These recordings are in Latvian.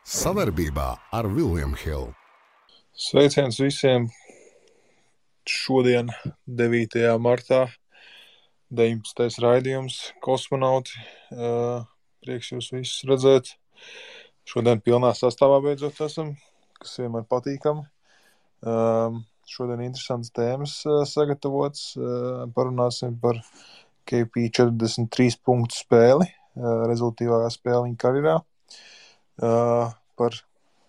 Savarbībā ar William Hill. Sveiciens visiem! Šodien, 9. martā, 19. raidījums Kosmonauti. Prieks jūs visus redzēt. Šodien pilnā sastāvā beidzot esam, kas vienmēr patīkami. Šodien interesants tēmas sagatavots. Parunāsim par KP 43 punktu spēli, rezultīvākā spēle viņa karjerā. Par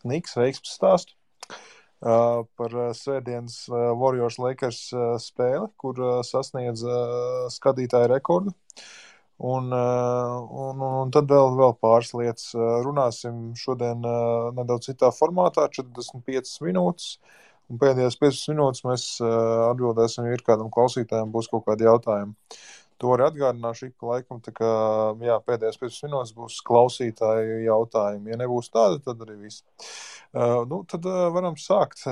Knicks veiksmes stāstu. Par svētdienas Warriors Lakers spēli, kur sasniedz skatītāju rekordu. Un tad vēl pāris lietas. Runāsim šodien nedaudz citā formātā, 45 minūtes. Un pēdējās 15 minūtes mēs atbildēsim, ja ir kādam klausītājiem būs kaut kādi jautājumi. To arī atgādināšu ik pa laikam, tā kā pēdējās 15 minūtes būs klausītāju jautājumi. Ja nebūs tāda, tad arī viss. Tad varam sākt.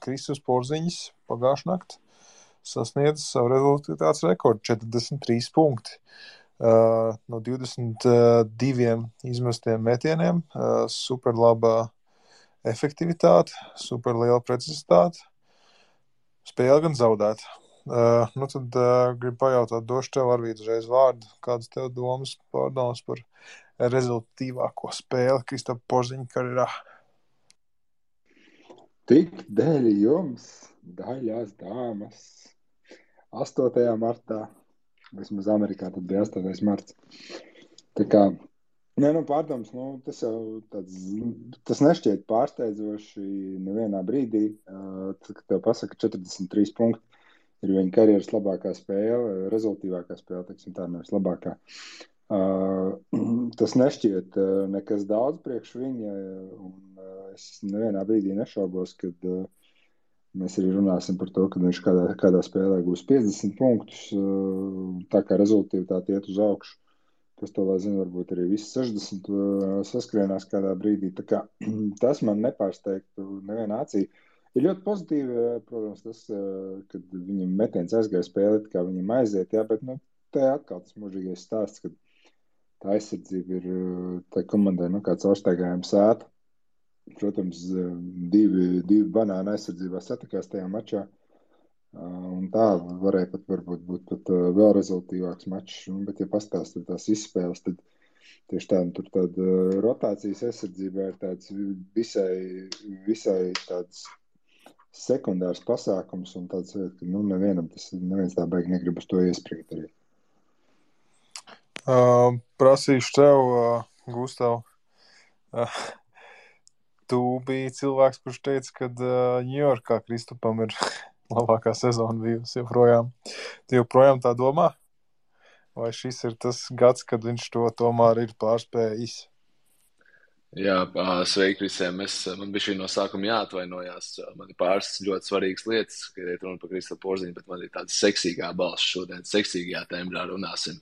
Kristus Porziņš pagājušā naktī sasniedz savu rezultātu rekordu 43 punkti. No 22 izmestiem metieniem, super labā efektivitāte, super liela precizitāte, spēle gan zaudēt. Tad gribu pajautāt, došu tev Arvīd uzreiz vārdu, kādas tev pārdomas par rezultātīvāko spēli Kristapa Porziņa karjerā? Tik dēļ jums, daļās dāmas, 8. martā, vismaz Amerikā tad bija 8. marts. Tā kā, pārdoms, tas nešķiet pārsteidzoši nevienā brīdī, kad tev pasaka 43 punkti. Ir viņa karjeras labākā spēle, rezultīvākā spēle, teiksim tā, nevis labākā. Tas nešķiet nekas daudz priekš viņa, un es nevienā brīdī nešaubos, kad mēs arī runāsim par to, ka viņš kādā spēlē gūs 50 punktus, tā kā rezultīvitāte iet uz augšu. Kas to lai zina, varbūt arī visi 60 saskrienās kādā brīdī. Tā kā tas man nepārsteigtu nevienā acī. Ir ļoti pozitīvi, protams, tas, kad viņam metiens aizgāja spēlēt, kā viņam aiziet, bet te atkal tas mūžīgais stāsts, kad tā aizsardzība ir tā komandai, kā caurstaigājuma sēta. Protams, divi banāni aizsardzībā satikās tajā mačā, un tā varēja varbūt būt vēl rezultīvāks mačs, bet ja pastāstīt tās izspēles, tad tieši tāda rotācijas aizsardzībā ir tāds visai tāds sekundārs pasākums un tāds, ka neviens tā baigi negrib uz to iesprīt arī. Prasīšu tev, Gustav, tu biji cilvēks, kurš teica, ka Ņujorkā Kristupam ir labākā sezona bijusi joprojām. Tu joprojām tā domā? Vai šis ir tas gads, kad viņš to tomēr ir pārspējis? Jā, sveiki visiem. Man bija šī no sākuma jāatvainojās. Man ir pāris ļoti svarīgas lietas, kad ir runa par Kristapu Porziņu, bet man ir tāda seksīgā balss šodien, seksīgajā tembrā runāsim.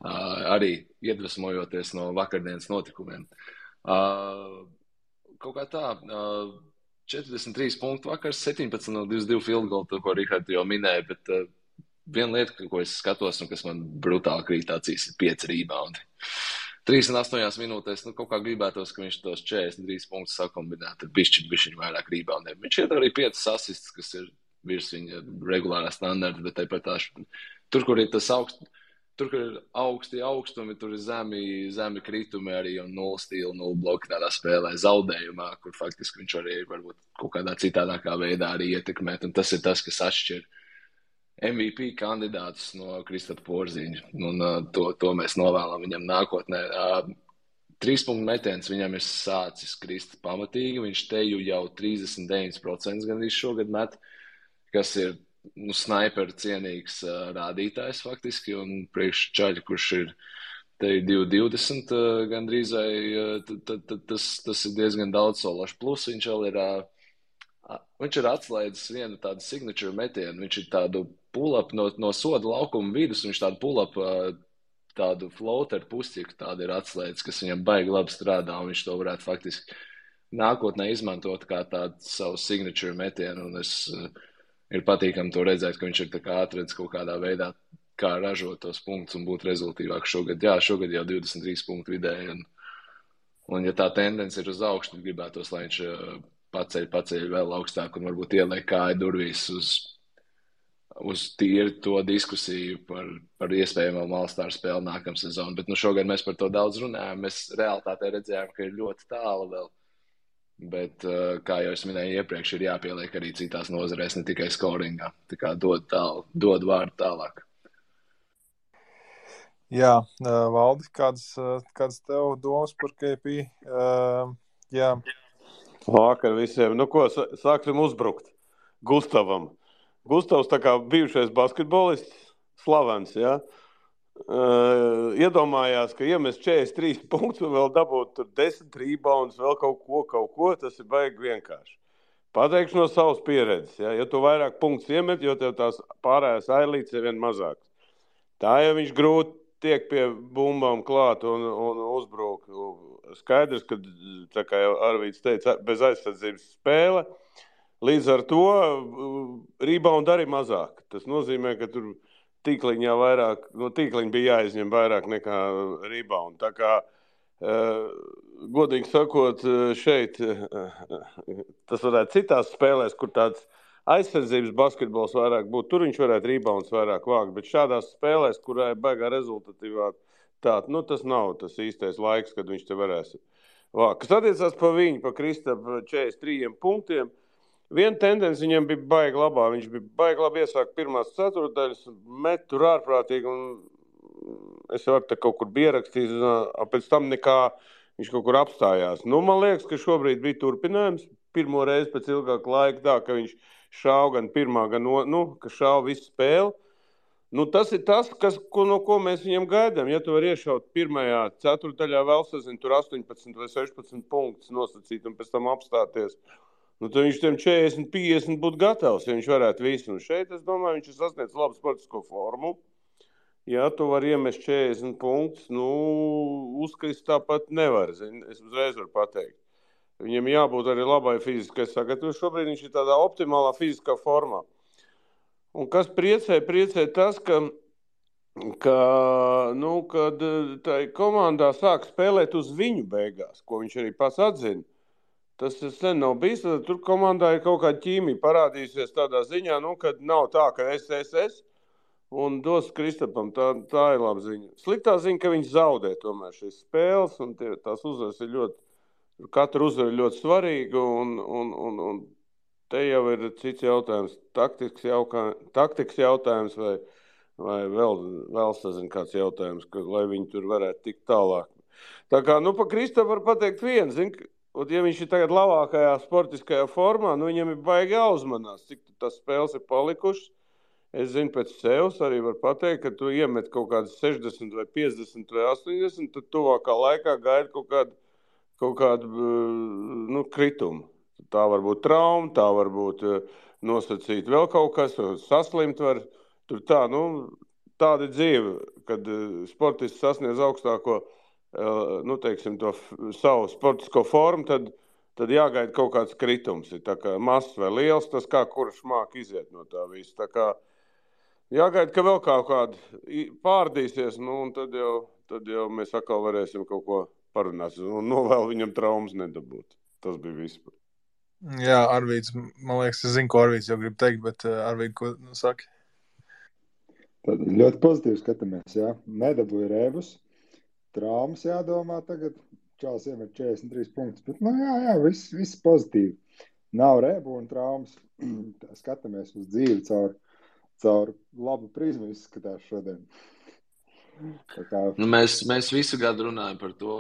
Arī iedvesmojoties no vakardienas notikumiem. Kaut kā tā, 43 punktu vakars, 17 no 22 field goal, to, ko Rihards jau minēja, bet viena lieta, ko es skatos un kas man brutāli krīt acīs, ir 5 rebound. 3,8 minūtēs, kaut kā gribētos, ka viņš tos 43 punktus sakombinētu ar bišķiņu vairāk reboundiem. Viņš iet arī 5 asists, kas ir virs viņa regulārā standarta, bet tāpat tur, kur ir tas tur, kur ir augsti augstumi, tur ir zemi kritumi arī un 0 stila, 0 bloki tādā spēlē zaudējumā, kur faktiski viņš arī varbūt kaut kādā citādākā veidā arī ietekmēt, un tas ir tas, kas atšķir MVP kandidātus no Kristapa Porziņa, un to mēs novēlam viņam nākotnē. 3 punktu metiens viņam ir sācis krist pamatīgi, viņš teju jau 39% gandrīz šogad met, kas ir snaiperu cienīgs rādītājs faktiski, un priekš čaļi, kurš ir teju 2,20 gandrīz, tas ir diezgan daudz solašu. Plus viņš ir atslēdzis vienu tādu signature metienu, viņš ir tādu pull-up no soda laukuma vidus, viņš tādu pull-up, tādu floater pusķiku tādu ir atslēdzis, kas viņam baigi labi strādā, un viņš to varētu faktiski nākotnē izmantot kā tādu savu signature metienu, un ir patīkami to redzēt, ka viņš ir tā kā atredz kaut kādā veidā, kā ražot tos punktus un būt rezultīvāk šogad. Jā, šogad jau 23 punktu vidēji, Un ja tā tendence ir uz augšu, tad gribētos, lai viņš paceļ vēl augstāk un varbūt ieliek kāju durvīs uz tīri to diskusiju par iespējamo All-Star spēli nākamā sezonu. Bet šogad mēs par to daudz runājam. Mēs realitātē redzējām, ka ir ļoti tālu vēl. Bet, kā jau es minēju iepriekš, ir jāpieliek arī citās nozarēs, ne tikai scoringā. Tā kā dod vārdu tālāk. Jā, Valdi, kādas tev domas par KP? Jā. Vakar visiem. Nu ko, sāksim uzbrukt Gustavam. Gustavs tā kā bijušais basketbolists, slavens, jā. Iedomājās, ka iemest 43 punktus un vēl dabūt tur 10 rebounds, vēl kaut ko, tas ir baigi vienkārši. Pateikšu no savas pieredzes, jā. Ja tu vairāk punktus iemet, jo tev tās pārējās ailītes ir vien mazākas. Tā jau viņš grūti tiek pie bumbām klāt un uzbrūk. Skaidrs, ka, tā kā jau Arvīds teica, bez aizsardzības spēle. Līdz ar to rebound arī mazāk. Tas nozīmē, ka tur tīkliņā vairāk, no tīkliņa bija jāizņem vairāk nekā rebound. Tā kā, godīgi sakot, šeit tas varētu citās spēlēs, kur tāds aizsardzības basketbols vairāk būtu, tur viņš varētu rebounds vairāk vākt, bet šādās spēlēs, kurā ir baigā rezultatīvā tāda, tas nav tas īstais laiks, kad viņš te varēs vākt. Kas attiecās pa viņu, pa Kristapu 43 punktiem, viena tendence viņam bija baigi labā. Viņš bija baigi labi iesākt pirmās ceturtdaļas, met tur ārprātīgi, un es jau te kaut kur biju ierakstījis, pēc tam nekā viņš kaut kur apstājās. Man liekas, ka šobrīd bija turpinājums. Pirmo reizi pēc ilgāka laika tā, ka viņš šāva gan pirmā, gan ka šāva visu spēli. Tas ir tas, no ko mēs viņam gaidām. Ja tu vari iešaut pirmajā ceturtdaļā vēl sazin, tur 18 vai 16 punktus nosacīt un pēc tam apstāties, tad viņš tiem 40-50 būtu gatavs, ja viņš varētu visu. Un šeit, es domāju, viņš ir sasniedz labu sportisko formu. Ja tu vari iemest 40 punktus, uzkrist tāpat nevar. Es uzreiz varu pateikt. Viņam jābūt arī labai fiziskai sagatavošanai. Šobrīd viņš ir tādā optimālā fiziskā formā. Un kas priecē tas, kad tai komandā sāk spēlēt uz viņu beigās, ko viņš arī pats atzina. Tas sen nav bijis, tad tur komandā ir kaut kāda ķīmija parādījusies tādā ziņā, kad nav tā, ka es un dos Kristapam. Tā ir laba ziņa. Sliktā ziņa, ka viņš zaudē tomēr šīs spēles, un tās uzvaras ir katra uzvara ir ļoti svarīga, un te jau ir cits jautājums, taktikas jautājums vai vēl sazin kāds jautājums, lai viņi tur varētu tikt tālāk. Tā kā, pa Kristapu var pateikt vienu, un ja viņš ir tagad labākajā sportiskajā formā, viņam ir baigi jāuzmanās, cik tas spēles ir palikušas. Es zinu pēc sevis arī var pateikt, ka tu iemet kaut kādas 60 vai 50 vai 80, tad tuvākā laikā gaida kaut kādu kritumu. Tā var būt trauma, tā var būt nosacīt vēl kaut kas, saslimt var. Tur tāda ir dzīve, kad sportists sasniedz augstāko to savu sportisko formu, tad jāgaida kaut kāds kritums. Ir tā kā mazs vai liels, tas kā kurš māk iziet no tā visu. Tā kā jāgaida, ka vēl kaut kāda pārdīsies, un tad jau mēs atkal varēsim kaut ko parunāt. Un novēl viņam traumas nedabūt. Tas bija viss. Jā, Arvīds, man liekas, es zinu, ko Arvīds jau grib teikt, bet Arvīd, ko saki? Tad ļoti pozitīvi skatāmies, jā. Nedabūja rēbus. Traumas jādomā tagad. Čāls iemet 43 punktus, bet jā, viss pozitīvi. Nav rēbu un traumas. Skatāmies uz dzīvi caur labu prizmu izskatās šodien. Tā kā... Mēs visu gadu runājam par to,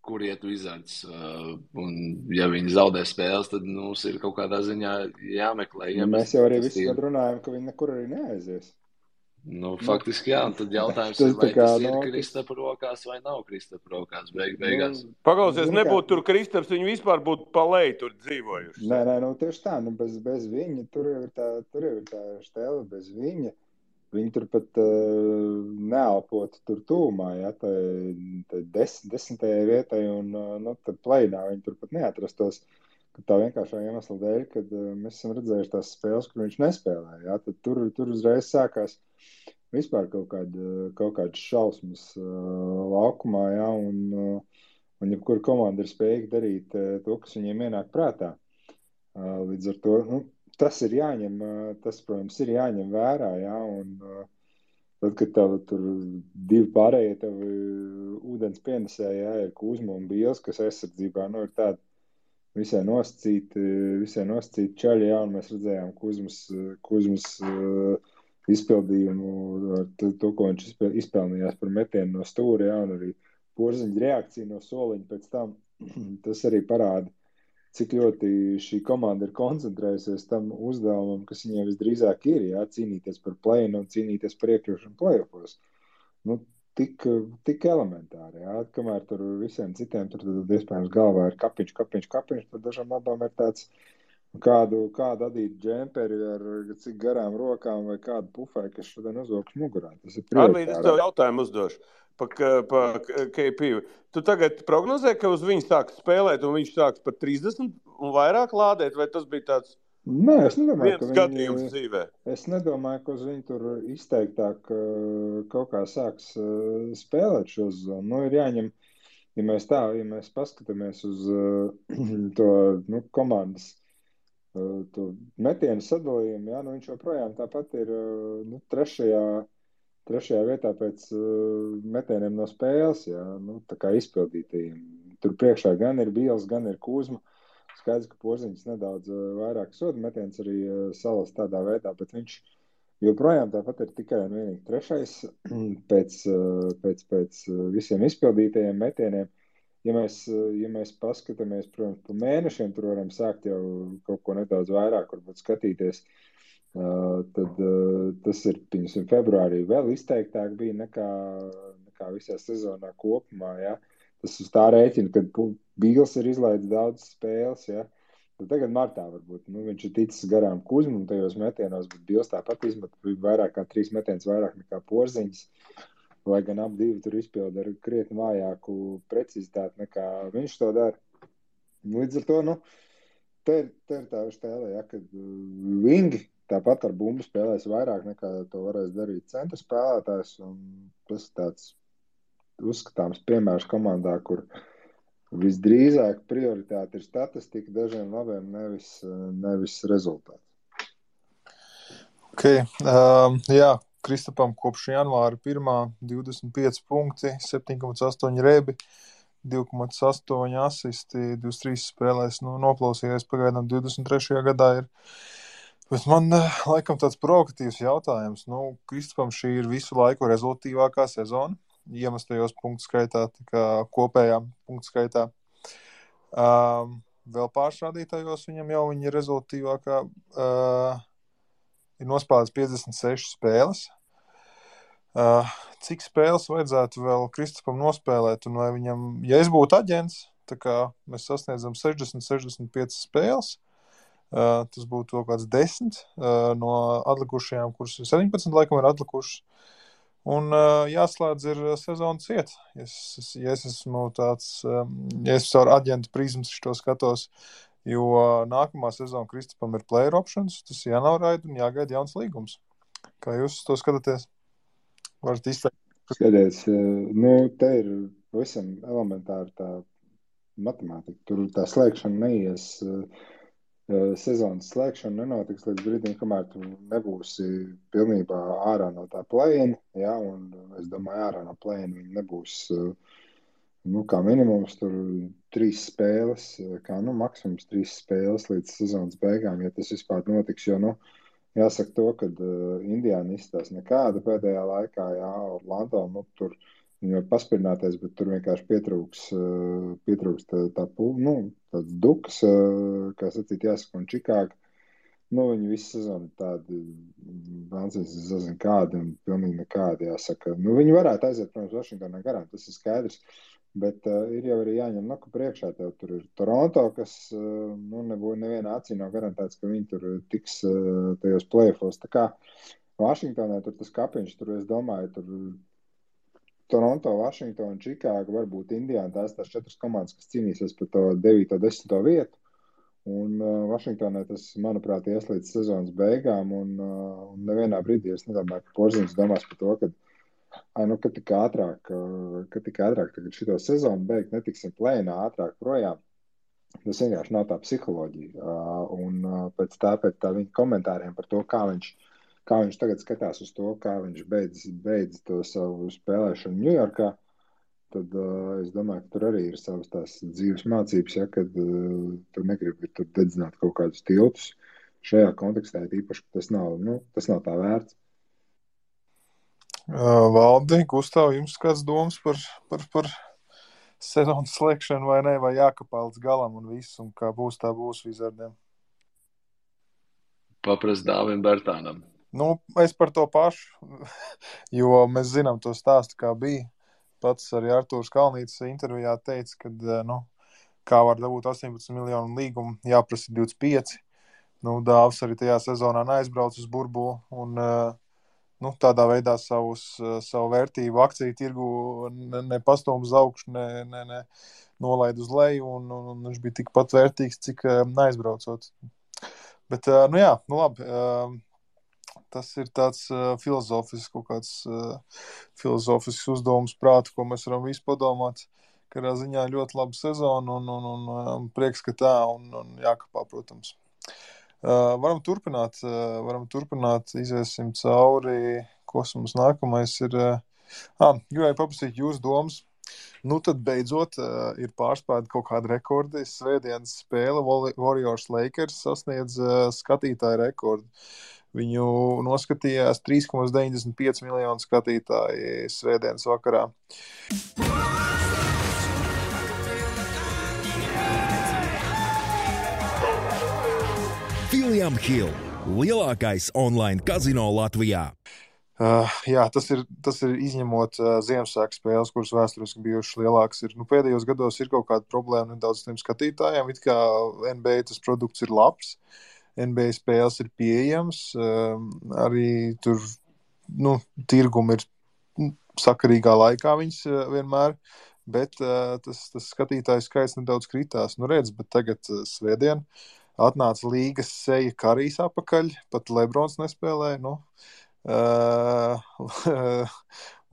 kur iet Wizards. Un ja viņi zaudē spēles, tad mums ir kaut kādā ziņā jāmeklē. Mēs jau arī visu gadu runājam, ka viņi nekur arī neaizies. Faktiski jā, un tad jautājums ir, vai tas ir Kristapa rokās vai nav Kristapa rokās beigās. Paklausies, nebūtu tur Kristaps, viņi vispār būtu pa leju tur dzīvojuši. Nē, tieši tā, bez viņa, tur jau ir tā štēle, bez viņa. Viņi tur pat neelpotu tur tūmā, ja, tā 10. vietai, un tad pleinā viņi tur pat neatrastos. Tā vienkāršā iemesla dēļ, kad mēs esam redzējuši tās spēles, kur viņš nespēlē. Ja? Tad tur uzreiz sākās vispār kaut kādas šausmas laukumā. Ja? un jebkura komanda ir spējīga darīt to, kas viņiem ienāk prātā. Līdz ar to, tas ir jāņem, tas, protams, ir jāņem vērā, jā, un tad, kad tev tur divi pārējie tev ūdens pienesēji, jā, ir Kuzma un Bīls, kas aizsardzībā, ir tādi visai nosacīti čaļi, jā, un mēs redzējām Kuzmas izpildījumu ar to, ko viņš izpelnījās par metienu no stūra, jā, un arī Porziņa reakcija no soliņa pēc tam, tas arī parāda, cik ļoti šī komanda ir koncentrējusies tam uzdevumam, kas viņiem visdrīzāk ir, jā, cīnīties par play-in un cīnīties par iekļūšanu play-offos. Tik elementāri, jā, kamēr tur visiem citiem tur iespējams galvā ir kapiņš, tad dažam labām ir tāds kādu adītu džemperi ar cik garām rokām vai kādu pufai, kas šodien uzvilks mugurā. Tas ir prioritāri. Arvīd, es tev jautājumu uzdošu pa KP. Tu tagad prognozē, ka uz viņu sāks spēlēt un viņš sāks par 30 un vairāk lādēt, vai tas bija tāds Nē, es nedomāju, viens skatījums dzīvē? Es nedomāju, ka uz viņu tur izteiktāk kaut kā sāks spēlēt šo zonu. Ir jāņem, ja mēs paskatāmies uz to komandas to metienu sadalījumu, jā, viņš joprojām tāpat ir trešajā vietā pēc metieniem no spēles, jā, tā kā izpildītajiem. Tur priekšā gan ir Bīls, gan ir Kuzma. Skaidrs, ka Porziņš nedaudz vairāk soda metiens arī salas tādā veidā, bet viņš joprojām tāpat ir tikai un vienīgi trešais pēc visiem izpildītajiem metieniem. Ja mēs paskatāmies, protams, pa mēnešiem, tur varam sākt jau kaut ko nedaudz vairāk, varbūt skatīties, tad tas ir, piemēram, februārī vēl izteiktāk bija nekā visā sezonā kopumā, jā. Tas uz tā rēķina, kad Bīls ir izlaidis daudz spēles, ja? Tad tagad martā varbūt. Viņš ir ticis garām Kuzmam tajos metienos, bet Bīls tāpat izmet vairāk kā 3 metienus vairāk nekā Porziņš. Lai gan ap divi tur izpilda ar krietni vājāku precizitāti nekā viņš to dara. Līdz ar to, te ir tā stēle, ja, kad vingi tāpat ar bumbu spēlēs vairāk nekā to varēs darīt centra spēlētājs, un tas tāds uzskatāms piemērs komandā, kur visdrīzāk prioritāte ir statistika dažiem labiem, nevis rezultāts. Jā, Kristapam kopš janvāra 1. 25 punkti, 7,8 rebi, 2,8 asisti, 23 spēlēs, noklausījies pagaidām 23. gadā ir. Bet man laikam tāds provokatīvs jautājums. Kristapam šī ir visu laiku rezultīvākā sezona. Iemestajos punktu skaitā, tā kā kopējā punktu skaitā. Vēl pāršrādītājos viņam jau viņa rezultīvākā ir nospēlēts 56 spēles. Cik spēles vajadzētu vēl Kristapam nospēlēt? Un vai viņam, ja es būtu aģents, tā kā mēs sasniedzam 60-65 spēles, tas būtu kaut kāds 10 no atlikušajām, kuras 17 laikam ir atlikušas. Un jāslēdz ir sezonas iet. Ja es esmu tāds, ja es ar aģentu prizmas to skatos, jo nākamā sezona Kristapam ir player options, tas jānoraida un jāgaida jauns līgums. Kā jūs to skatāties? Varat izteikt? Skaties, te ir visam elementāri tā matemātika. Tur tā slēgšana neies. Sezonas slēgšana nenotiks līdz brīdim, kamēr tu nebūsi pilnībā ārā no tā play-in, jā, un es domāju, ārā no play-in viņi nebūs, kā minimums tur 3 spēles, kā maksimums 3 spēles līdz sezonas beigām, ja tas vispār notiks, jo, jāsaka to, kad Indiāna izstās nekāda pēdējā laikā, jā, Orlando, tur viņi var paspirināties, bet tur vienkārši pietrūks tāds dukas, kā sacīt, jāsaka, un Čikāga. Viņi visu sezonu tādi, Vansīs, es zinu kādi, un pilnīgi nekādi, jāsaka. Viņi varētu aiziet, protams, Vašingtonā garām, tas ir skaidrs, bet ir jau arī jāņem ka priekšā tev tur ir Toronto, kas, nevienā acī nav garantēts, ka viņi tur tiks tajos play-offos. Tā kā Vašingtonā tur tas kapiņš, tur es domāju, tur Toronto, Vašingtona, Čikāga, varbūt Indiāna, tās 4 komandas, kas cīnīsies par to 9. 10. vietu. Un Vašingtonai tas, manuprāt, ies līdz sezonas beigām. Un nevienā brīdī es nedomāju, ka Porziņš domās par to, ka Ka tik ātrāk tagad šito sezonu beigt, netiksim plēnā ātrāk projām. Tas vienkārši nav tā psiholoģija. Pēc tā viņa komentāriem par to, kā viņš tagad skatās uz to, kā viņš beidz to savu spēlēšanu Ņujorkā, tad es domāju, ka tur arī ir savas tās dzīves mācības, ja, kad tu negribi tur dedzināt kaut kādus tiltus. Šajā kontekstā īpaši, ka tas nav tā vērts. Valdi, Gustav, jums kāds domas par sezonas slēgšanu vai ne, vai jākapā līdz galam un viss, un kā būs, tā būs Wizardiem? Paprast Dāvim Bertānam. Es par to pašu, jo mēs zinām to stāstu, kā bija. Pats arī Artūrs Kalnītis intervijā teica, ka, kā var dabūt 18 miljonu līgumu, jāprasa 25. Dāvs arī tajā sezonā neaizbrauc uz burbuli un tādā veidā savu vērtību akciju tirgu nepastūm uz augšu, ne nolaid uz leju, un viņš bija tikpat vērtīgs, cik neaizbraucot. Bet, labi. Tas ir tāds filozofisks uzdevums prātu, ko mēs varam visi padomāt. Kādā ziņā ļoti laba sezona un prieks, ka tā, un jākapā, protams. Varam turpināt, iziesim cauri, kas mums nākamais ir. Gribēju paprasīt jūsu domas. Tad beidzot ir pārspēta kaut kāda rekordi. Svētdienas spēle Warriors Lakers sasniedz skatītāju rekordu. Viņu noskatījās 3,95 miljonu skatītāji svētdienas vakarā. William Hill, lielākais online kazino Latvijā. Tas ir izņemot Ziemassvētku spēles, kuras vēsturiski bijušas lielākas. Pēdējos gados ir kaut kāda problēma nedaudz tiem skatītājiem. It kā NBA tas produkts ir labs. NBA spēles ir pieejams, arī tur tirgumi ir sakarīgā laikā viņas vienmēr, bet tas skatītāju skaits nedaudz kritās. Redz, bet tagad svētdien atnāca līgas seja Karijs apakaļ, pat Lebrons nespēlēja.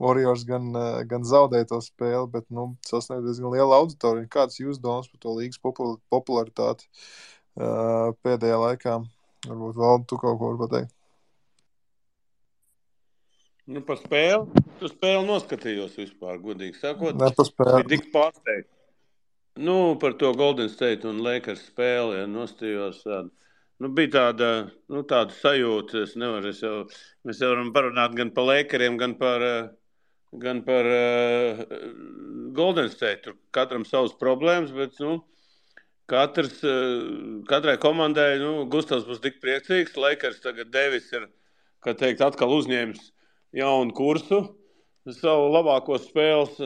Warriors gan zaudēja to spēli, bet sasniedz diezgan liela auditorija. Kāds jūs domas par to līgas popularitāti pēdējā laikā? Varbūt Valdi, tu kaut ko vari pateikt. Par spēli? Tu spēli noskatījos vispār, godīgi sakot. Ne par spēli. Bija tik pārsteigts. Par to Golden State un Lakers spēli, nostījos. Bija tāda sajūta, mēs jau varam parunāt gan par Lakeriem, gan par Golden State. Tur katram savas problēmas, bet, katrai komandai, Gustavs būs tik priecīgs. Lakers tagad Devis ir, kā teikt, atkal uzņēmis jaunu kursu savu labāko spēles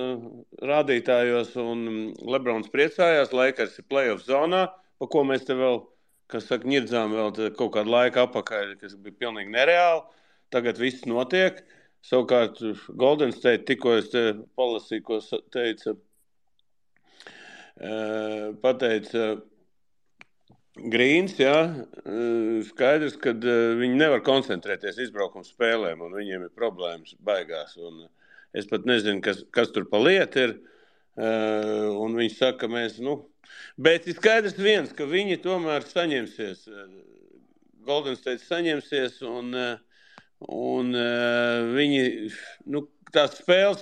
rādītājos, un Lebrons priecājās. Lakers ir playoff zonā, pa ko mēs te vēl, ņirdzām vēl kaut kādu laiku apakaļ, kas bija pilnīgi nereāli. Tagad viss notiek. Savukārt Golden State, tikko es te palasīju, ko pateica Grīns, skaidrs, ka viņi nevar koncentrēties izbraukuma spēlēm, un viņiem ir problēmas baigās. Un es pat nezinu, kas tur pa lietu ir, un viņi saka, ka mēs, bet ir skaidrs viens, ka viņi tomēr saņemsies, Golden State saņemsies, un viņi, tās spēles,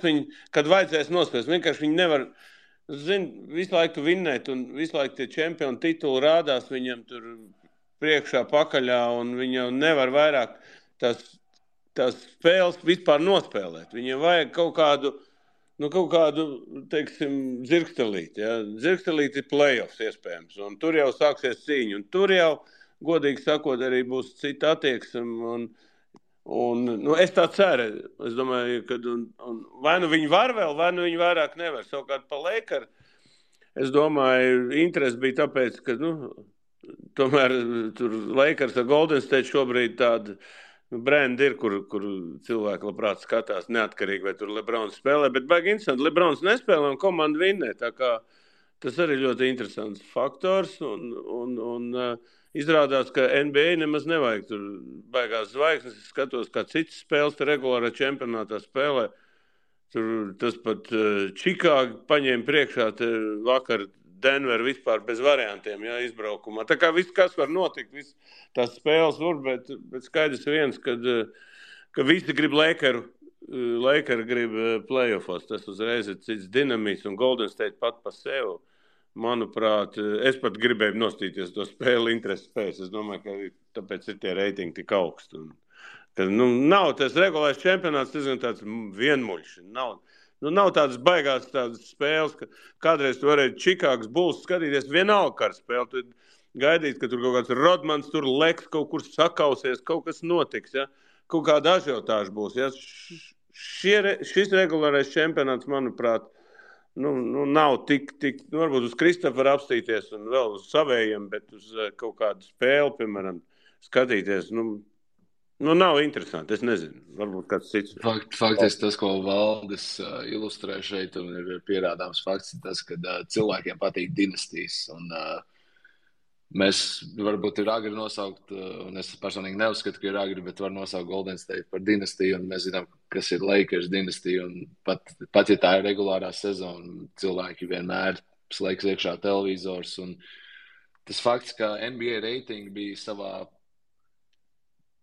kad vajadzēs nospēlēt, vienkārši viņi nevar, visu laiku vinnēt, un visu laiku tie čempionu tituli rādās viņam tur priekšā pakaļā, un viņi jau nevar vairāk tās spēles vispār nospēlēt. Viņiem vajag kaut kādu, teiksim, dzirkstelīti. Ja? Dzirkstelīti ir playoffs iespējams, un tur jau sāksies cīņa, un tur jau, godīgi sakot, arī būs cita attieksme, un es tā ceru. Es domāju, ka vai viņi var vēl, vai viņi vairāk nevar. Savukārt pa Lakers, es domāju, interesi bija tāpēc, ka, tomēr tur Lakers ar Golden State šobrīd tāda brendi ir, kur cilvēki labprāt skatās neatkarīgi, vai tur Lebrons spēlē, bet baigi interesanti, Lebrons nespēlē un komanda vinnē, tā kā tas arī ļoti interesants faktors, un izrādās, ka NBA nemaz nevajag tur baigās zvaigznes. Es skatos, kā citas spēles regulārā čempionātā spēlē. Tur tas pat Čikāga paņēma priekšā vakar Denver vispār bez variantiem, jā, izbraukumā. Tā kā viss, kas var notikt, viss tās spēles var, bet skaidrs viens, ka visi grib Lakeri grib playoffos. Tas uzreiz ir cits dinamisks un Golden State pat pa sevi. Manuprāt, es pat gribēju nostīties to spēli interesi pēc. Es domāju, ka tāpēc ir tie reitingi tik augsti. Ka, nav tas regulārs čempionāts, tas ir tāds vienmuļš. Nav tādas baigās tādas spēles, ka kādreiz tu varēji Čikāgas Bulls skatīties vienalga ar spēli. Tu gaidīt, ka tur kaut kāds Rodmans tur leks, kaut kur sakausies, kaut kas notiks, ja? Kaut kāda ažiotāža būs. Ja? Šis regulārais čempionāts, manuprāt, nav tik varbūt uz Kristoferu apstīties un vēl uz savējiem, bet uz kaut kādu spēli, piemēram, skatīties, nav interesanti, es nezinu, varbūt kāds cits. Faktiski tas, ko Valdis ilustrē šeit, un ir pierādāms fakts, ir tas, ka cilvēkiem patīk dinastijas, un mēs varbūt ir agri nosaukt, un es personīgi neuzskatu, ka ir agri, bet var nosaukt Golden State par dinastiju, un mēs zinām, kas ir Lakers dinastija, un pat ja tā ir regulārā sezona, cilvēki vienmēr slēgs iekšā televizors, un tas fakts, ka NBA reitingi bija savā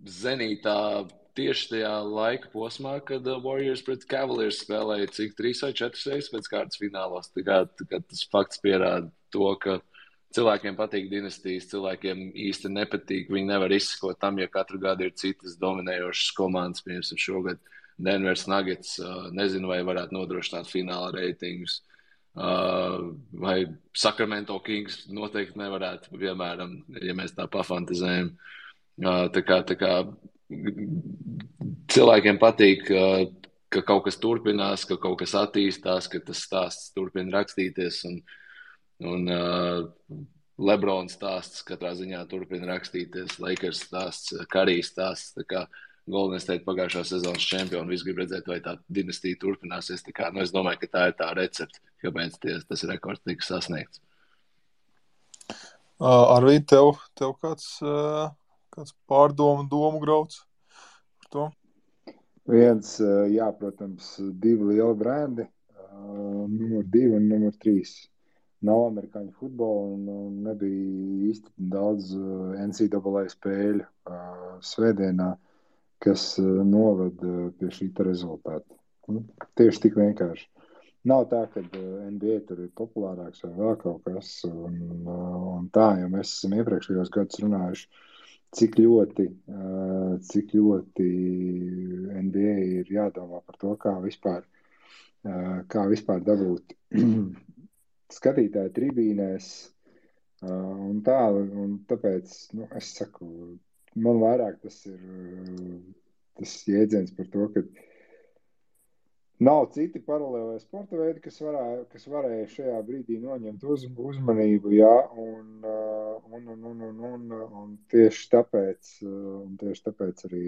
zenītā tieši tajā laika posmā, kad Warriors pret Cavaliers spēlēja cik 3 vai 4 reizes pēc kārtas finālos. Tā kā tas fakts pierāda to, ka cilvēkiem patīk dinastijas, cilvēkiem īsti nepatīk. Viņi nevar izsekot tam, ja katru gadu ir citas dominējošas komandas. Piemēram, šogad Denvers Nuggets, nezinu, vai varētu nodrošināt fināla reitingus. Vai Sacramento Kings noteikti nevarētu, piemēram, ja mēs tā pafantazējam. Tā kā cilvēkiem patīk, ka kaut kas turpinās, ka kaut kas attīstās, ka tas stāsts turpina rakstīties, un Lebrons stāsts katrā ziņā turpina rakstīties, Lakers stāsts, Karijas stāsts, tā kā Golden State pagājušā sezonas čempioni, visi grib redzēt, vai tā dinastija turpināsies, tā kā, es domāju, ka tā ir tā recepte, kāpēc tas rekords tika sasniegts. Arvīd, tev kāds domu grauds par to? Viens, jā, protams, 2 lieli brendi, numur 2 un numur 3. Nav amerikāņu futbola un nebija īsti daudz NCAA spēļu svētdienā, kas noved pie šīta rezultāta. Tieši tik vienkārši. Nav tā, ka NBA tur ir populārāks vai vēl kaut kas un tā, jo mēs esam iepriekšējos gadus runājuši, cik ļoti NBA ir jādomā par to, kā vispār dabūt skatītāju tribīnēs un tā, un tāpēc, es saku, man vairāk tas ir tas jēdziens par to, ka nav citi paralēlē sporta veidi, kas varēja šajā brīdī noņemt uzmanību, jā, un tieši tāpēc arī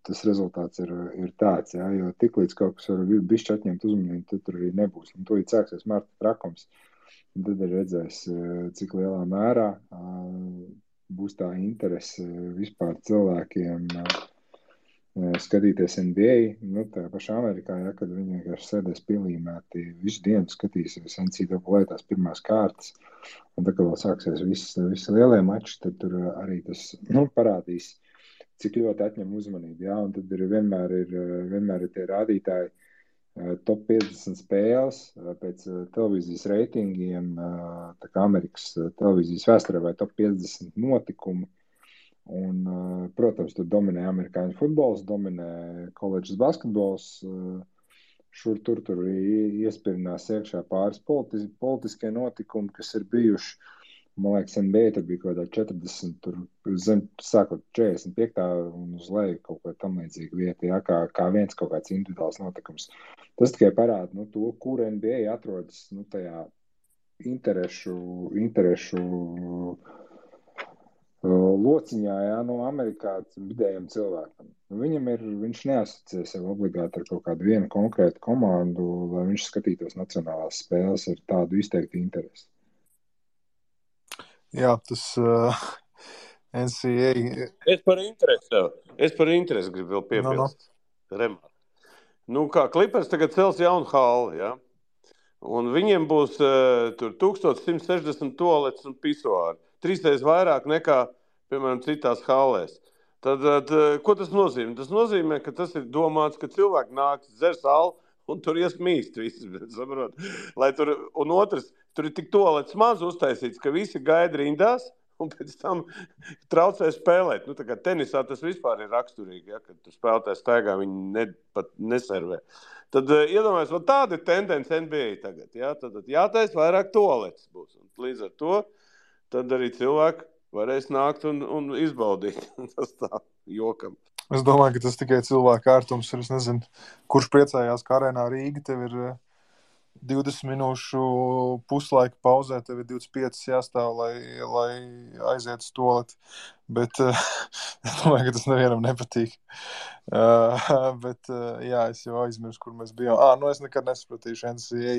tas rezultāts ir tāds, jā, jo tiklīdz kaut kas var bišķi atņemt uzmanību, tad tur arī nebūs. Un to sāksies marta trakums, un tad arī redzēs, cik lielā mērā būs tā interese vispār cilvēkiem skatīties NBA, tā pašā Amerikā, ja, kad viņi vienkārši sēdēs pielīmēti visu dienu skatīsies NCAA tās pirmās kārtas, un tā, kad vēl sāksies visi lielie mači, tad tur arī tas parādīs, cik ļoti atņem uzmanību, ja, un tad vienmēr ir tie rādītāji top 50 spēles pēc televīzijas reitingiem, tā kā Amerikas televīzijas vēsturē vai top 50 notikumu. Un, protams, tur dominē amerikāņu futbols, dominē koledžas basketbols, tur iespirinās iekšā pāris politiskie notikumi, kas ir bijuši. Man liekas, NBA tur bija kaut kādā 40, tur zem, sākot 45. un uz leju kaut kā tam līdzīga vieta, jā, kā viens kaut kāds individuāls notikums. Tas tikai parāda, to, kur NBA atrodas, tajā interešu lociņā, jā, no Amerikā vidējiem cilvēkam. Viņš neasociē sev obligāti ar kaut kādu vienu konkrētu komandu, lai viņš skatītos nacionālās spēles ar tādu izteiktu interesi. Jā, tas NCAA... Es par interesi gribu vēl piebilst. kā Clippers tagad cels jaunu halli, ja? Un viņiem būs tur 1160 toalets un pisuāri. 3 reizes vairāk nekā, piemēram, citās hallēs. Tad, ko tas nozīmē? Tas nozīmē, ka tas ir domāts, ka cilvēki nāk, dzers alu un tur iesmīst visi, saprot? Lai tur, un otrs, tur ir tik toalets maz uztaisīts, ka visi gaida rindās un pēc tam traucē spēlēt. Tā kā tenisā tas vispār ir raksturīgi, ja, kad tu spēlētāji staigā, viņi pat neservē. Tad iedomājies, tāda ir tendence NBA tagad. Ja? Tad jātais vairāk toaletes būs. Un līdz ar to tad arī cilvēki varēs nākt un izbaudīt. Tas tā jokam. Es domāju, ka tas tikai cilvēku ērtums ir. Es nezinu, kurš priecājās, ka arēnā Rīga tev ir 20 minūšu puslaika pauzē, tev ir 25 jāstāv, lai aiziet uz toaleti. Bet es domāju, ka tas nevienam nepatīk. Bet jā, es jau aizmirsu, kur mēs bijām. Es nekad nesapratīšu NCAA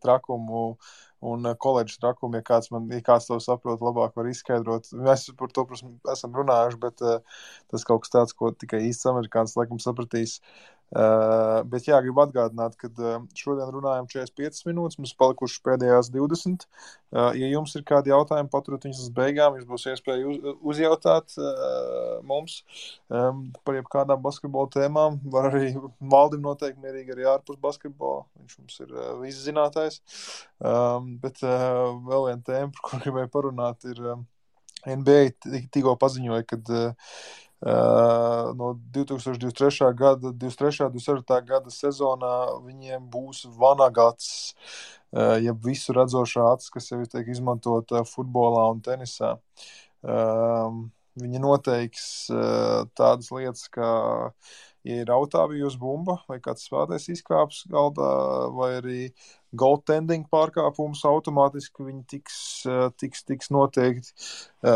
trakumu un koledžas trakumu, ja kāds to saprot, labāk var izskaidrot. Mēs par to, protams, esam runājuši, bet tas kaut kas tāds, ko tikai īsts amerikāns laikam sapratīs. Bet jā, gribu atgādināt, ka šodien runājam 45 minūtes, mums palikušas pēdējās 20. Ja jums ir kādi jautājumi, paturot viņus uz beigām, jums būs iespēja uzjautāt mums par jebkādām basketbola tēmām. Var arī Valdim noteikti mierīgi arī ārpus basketbola, viņš mums ir viszinātājs. Bet vēl viena tēma, par kur gribēju parunāt, ir NBA tikko paziņoja, kad no 2023. gada, 24. gada sezonā viņiem būs vanagats, jeb visu redzošā acis, kas jau tiek izmantota futbolā un tenisā. Viņi noteiks tādas lietas, kā, ja ir autāvijos bumba vai kāds spēlētājs izkāps galdā, vai arī goaltending pārkāpums automātiski viņi tiks noteikti.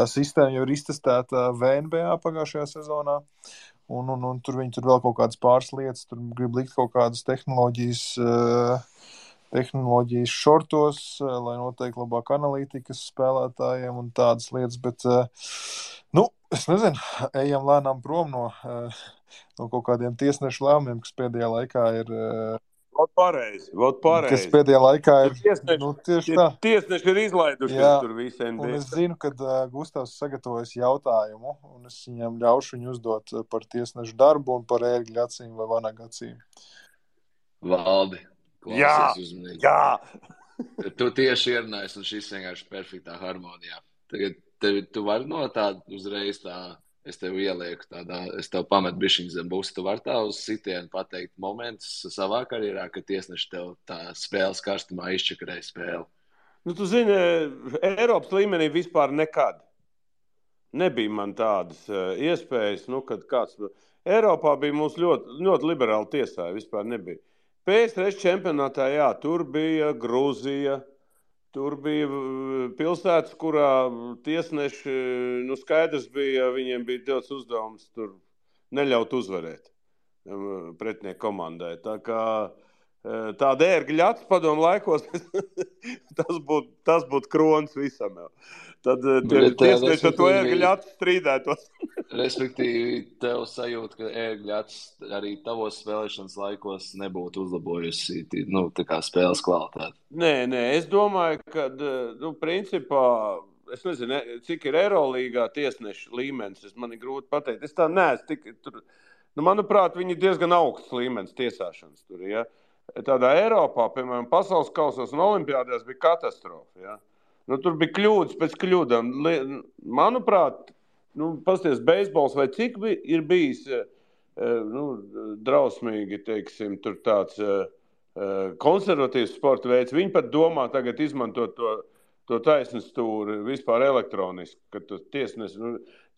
Sistēma jau ir iztestēta VNBA pagājušajā sezonā, un tur viņi tur vēl kaut kādas pāris lietas, tur grib likt kaut kādas tehnoloģijas šortos, lai noteikti labāk analītikas spēlētājiem un tādas lietas, bet, es nezinu, ejam lēnām prom no kaut kādiem tiesnešu lēmumiem, kas pēdējā laikā ir... Pareizi. Kas pēdējā laikā ir... tieši tā. Tiesneši ir izlaidušies tur visi NBA. Un es zinu, ka Gustavs sagatavojas jautājumu, un es viņam ļaušu viņu uzdot par tiesnešu darbu un par ērgļu acīm vai vanagu acīm. Valdi, klausies uzmanīgi. Jā! Tu tieši ierunājies, un šis vienkārši perfektā harmonijā. Tagad tu vari no tāda uzreiz es tev ielieku es tev pametu bišķiņu zem būs, tu vari tā uz sitienu pateikt momentus savā karjerā, ka tiesneši tev tā spēles karstumā izčakarēja spēli. Tu zini, Eiropas līmenī vispār nekad nebija man tādas iespējas, kad kāds... Eiropā bija mums ļoti, ļoti liberāli tiesāja, vispār nebija. PSRS čempionātā, jā, tur bija Grūzija, tur bija pilsētas, kurā tiesneši, skaidrs bija, viņiem bija dots uzdevums tur neļaut uzvarēt pretinieku komandai. Tā kā tāda ērgļa acis padomu laikos, tas būtu krons visam jau. Tad tiesneši ar to ērgļa acis strīdētos. Respektīvi, tev sajūt, ka ērgļa acis arī tavos spēlēšanas laikos nebūtu uzlabojusi tā kā spēles kvalitāti. Nē, es domāju, ka, principā, es nezinu, cik ir Eirolīgā tiesnešu līmenis, man ir grūti pateikt. Es tā neesmu tik tur, manuprāt, viņi ir diezgan augsts līmenis tiesāšanas tur, ja. Tādā Eiropā, piemēram, pasaules kausos un olimpiādēs bija katastrofa, ja. Tur bija kļūdas pēc kļūdām. Manuprāt, pasties beisbols vai cik ir bijis drausmīgi, teiksim, tur tāds konservatīvs sporta veids. Viņi pat domā tagad izmantot to taisnes stūri vispār elektroniski, ka tu tiesnes.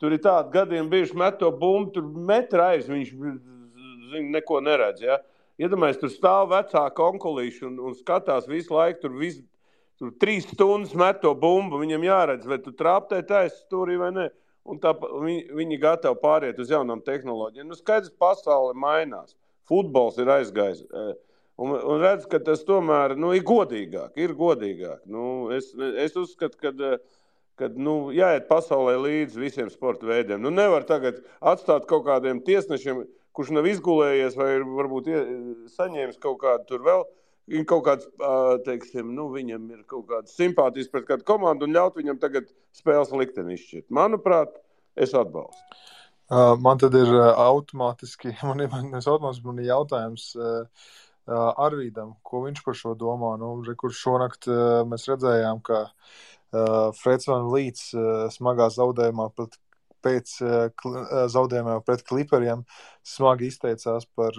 Tur ir tādi gadiem bijuši met to bumbu, tur metra aiz, viņš neko neredz, ja. Iedomājies, tur stāv vecāka onkulīši un skatās visu laiku, tur 3 stundas met to bumbu, viņam jāredz, vai tu trāptē taisnes stūrī vai ne. Un viņi gatavi pāriet uz jaunām tehnoloģijām. Skaidrs, pasaule mainās. Futbols ir aizgājis. Un redz, ka tas tomēr ir godīgāk. Es uzskatu, ka jāiet pasaulē līdz visiem sporta veidiem. Nevar tagad atstāt kaut kādiem tiesnešiem, kurš nav izgulējies vai varbūt saņēmis kaut kādu tur vēl, kaut kāds, teiksim, viņam ir kaut kāds simpātijas pret kādu komandu un ļaut viņam tagad spēles likteni izšķirt. Manuprāt, es atbalstu. Man tad ir automātiski, man ir jautājums Arvīdam, ko viņš par šo domā. Kur šonakt mēs redzējām, ka Freds Van Vliets smagā zaudējumā pēc zaudējumā pret Clipperiem smagi izteicās par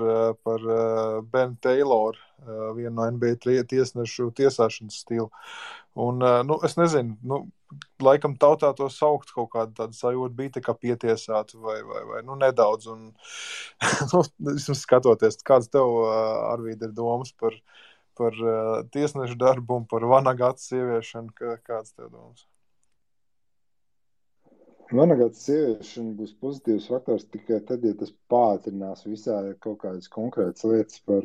Ben Taylor, vienu no NBA tiesnešu tiesāšanas stilu. Un, es nezinu, laikam tautā to saukt kaut kādu tādu sajūtu bija tā kā pietiesāt vai nedaudz. Un, vismaz skatoties, kāds tev, Arvīd, ir domas par tiesnešu darbu un par Vanagats ieviešanu, kāds tev domas? Vanagats ieviešana būs pozitīvs faktors tikai tad, ja tas pātrinās visā kaut kādas konkrētas lietas par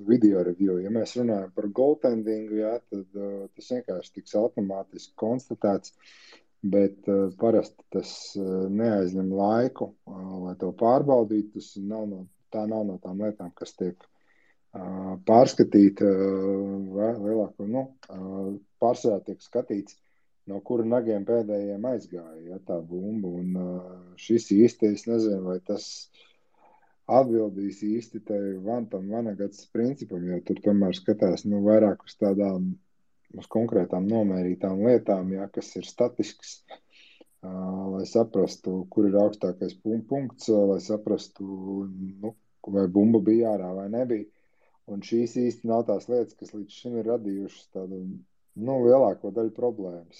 video review. Ja mēs runājam par goaltendingu, tad tas vienkārši tiks automātiski konstatēts, bet parasti tas neaizņem laiku, lai to pārbaudītu. Tā nav no tām lietām, kas tiek pārskatīta pārsvarā tiek skatīts, no kura nagiem pēdējiem aizgāja tā bumba. Un šis īsti, es nezinu, vai tas atbildīs īsti tam Vanagats principam, jo tur tomēr skatās vairāk uz tādām, uz konkrētām nomērītām lietām, kas ir statisks, lai saprastu, kur ir augstākais punkts, lai saprastu, vai bumba bija ārā vai nebija. Un šīs īsti nav tās lietas, kas līdz šim ir radījušas tādu lielāko daļu problēmas,